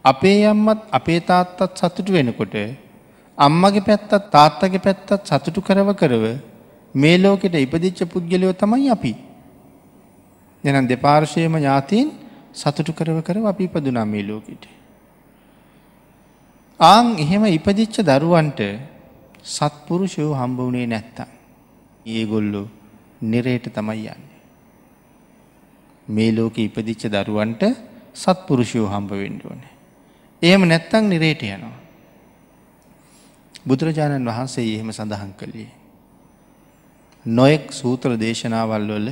අපේ අම්මත් අපේ තාත්තත් සතුටු වෙනකොට අම්මගේ පැත්තත් තාත්තගේ පැත්තත් සතුටු කරව කරව මේ ලෝකෙට ඉපදිච්ච පුද්ගලයෝ තමයි අපි. එහෙනම් දෙපාර්ශ්වයේම ඥාතීන් සතුටු කරව කරව අපි ඉපදුනා මේ ලෝකෙට. ආන් එහෙම ඉපදිච්ච දරුවන්ට සත්පුරුෂයෝ හම්බ වුණේ නැත්තම් ඒගොල්ලෝ නිරේට තමයි යන්නේ. මේ ලෝකෙ ඉපදිච්ච දරුවන්ට සත්පුරුෂයෝ හම්බ වෙන්න ඕනේ. එහෙම නැත්තම් නිරේට යනවා. බුදුරජාණන් වහන්සේ එහෙම සඳහන් කළේ නොයෙක් සූත්‍ර දේශනාවල් වල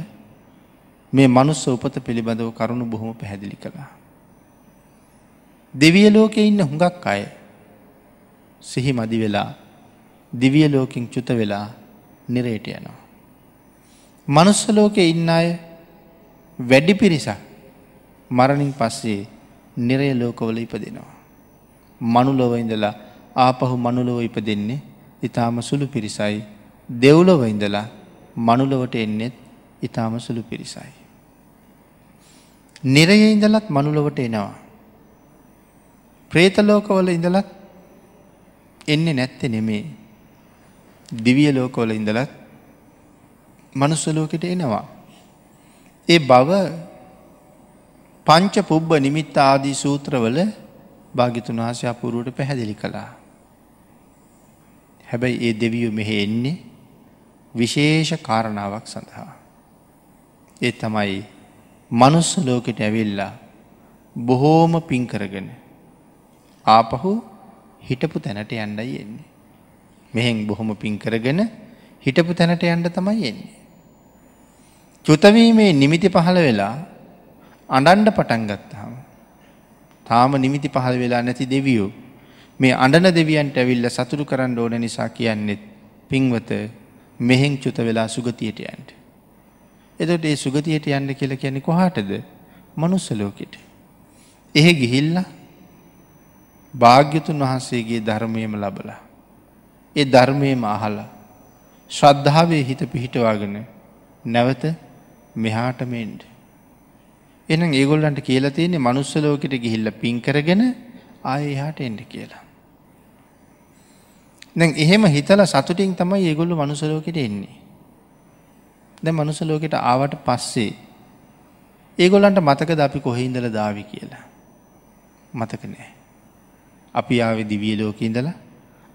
මේ මනුස්ස උපත පිළිබඳව කරුණු බොහොම පැහැදිලි කළා. දිව්‍ය ලෝකේ ඉන්න හුඟක් අය සිහි මදි වෙලා දිව්‍ය ලෝකෙන් චුත වෙලා නිරේට යනවා. මනුස්ස ලෝකේ ඉන්න අය වැඩි පිරිසක් මරණින් පස්සේ නිරය ලෝකවල ඉපදෙනවා. මනුලොව ඉඳලා ආපහු මනුලොව ඉපදෙන්නේ ඊටාම සුළු පිරිසයි. දෙව්ලොව ඉඳලා මනුලොවට එන්නේත් ඊටාම සුළු පිරිසයි. නිරයේ ඉඳලත් මනුලොවට එනවා. ප්‍රේත ලෝකවල ඉඳලත් එන්නේ නැත්තේ නෙමේ. දිව්‍ය ලෝකවල ඉඳලත් මනුස්ස ලෝකෙට එනවා. ඒ බව පංච පුබ්බ නිමිත්ත ආදී සූත්‍රවල භාග්‍යතුන් වහන්සේ අපූර්වට පැහැදිලි කළා. හැබැයි ඒ දෙවියෝ මෙහෙ එන්නේ විශේෂ කාරණාවක් සඳහා. ඒ තමයි මනුස්ස ලෝකෙට ඇවිල්ලා බොහෝම පින් කරගෙන ආපහු හිටපු තැනට යන්නයි එන්නේ. මෙහෙන් බොහොම පින් කරගෙන හිටපු තැනට යන්න තමයි එන්නේ. චුත වීමේ නිමිති පහළ වෙලා අඬන්න පටන් ගත්තාම තාම නිමිති පහළ වෙලා නැති දෙවියෝ මේ අඬන දෙවියන්ට ඇවිල්ලා සතුටු කරන්න ඕන නිසා කියන්නේ පින්වත මෙහෙන් චුත වෙලා සුගතියට යන්න. එතකොට ඒ සුගතියට යන්න කියලා කියන්නේ කොහාටද? මනුස්ස ලෝකෙට. එහෙ ගිහිල්ලා භාග්‍යතුන් වහන්සේගේ ධර්මයේම ලබලා ඒ ධර්මයේම අහලා ශ්‍රද්ධාවේ හිත පිහිටවාගෙන නැවත මෙහාටම එන්න. එහෙනම් ඒගොල්ලන්ට කියලා තියෙන්නේ මනුස්ස ලෝකෙට ගිහිල්ලා පින් කරගෙන ආයෙ එහාට එන්න කියලා. දැන් එහෙම හිතලා සතුටින් තමයි ඒගොල්ලෝ මනුස්ස ලෝකෙට එන්නේ. දැන් මනුස්ස ලෝකෙට ආවට පස්සේ ඒගොල්ලන්ට මතකද අපි කොහේ ඉඳලා දාවි කියලා? මතක නෑ. අපි ආවේ දිව්‍ය ලෝකේ ඉඳලා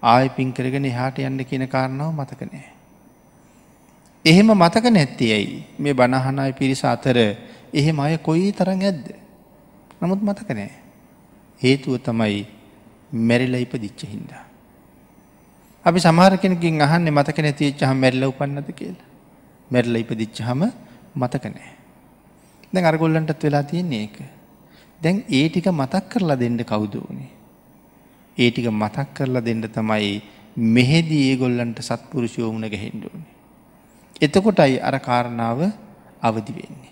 ආයෙ පින් කරගෙන එහාට යන්න කියන කාරණාව මතක නෑ. එහෙම මතක නැත්තේ ඇයි? මේ බණ අහන අය පිරිස අතර එහෙම අය කොයි තරම් ඇද්ද? නමුත් මතක නෑ. හේතුව තමයි මැරිලා ඉපදිච්ච හින්දා. අපි සමහර කෙනෙක්ගෙන් අහන්නේ මතක නැති වෙච්චහම මැරිලා උපන්නද කියලා. මැරිලා ඉපදිච්චහම මතක නෑ. දැන් අර ගොල්ලන්ටත් වෙලා තියෙන්නේ ඒක. දැන් ඒ ටික මතක් කරලා දෙන්න කවුද උනේ? ඒ ටික මතක් කරලා දෙන්න තමයි මෙහෙදී ඒගොල්ලන්ට සත්පුරුෂයෝ මුණ ගැහෙන්න ඕනේ. එතකොටයි අර කාරණාව අවදි වෙන්නේ.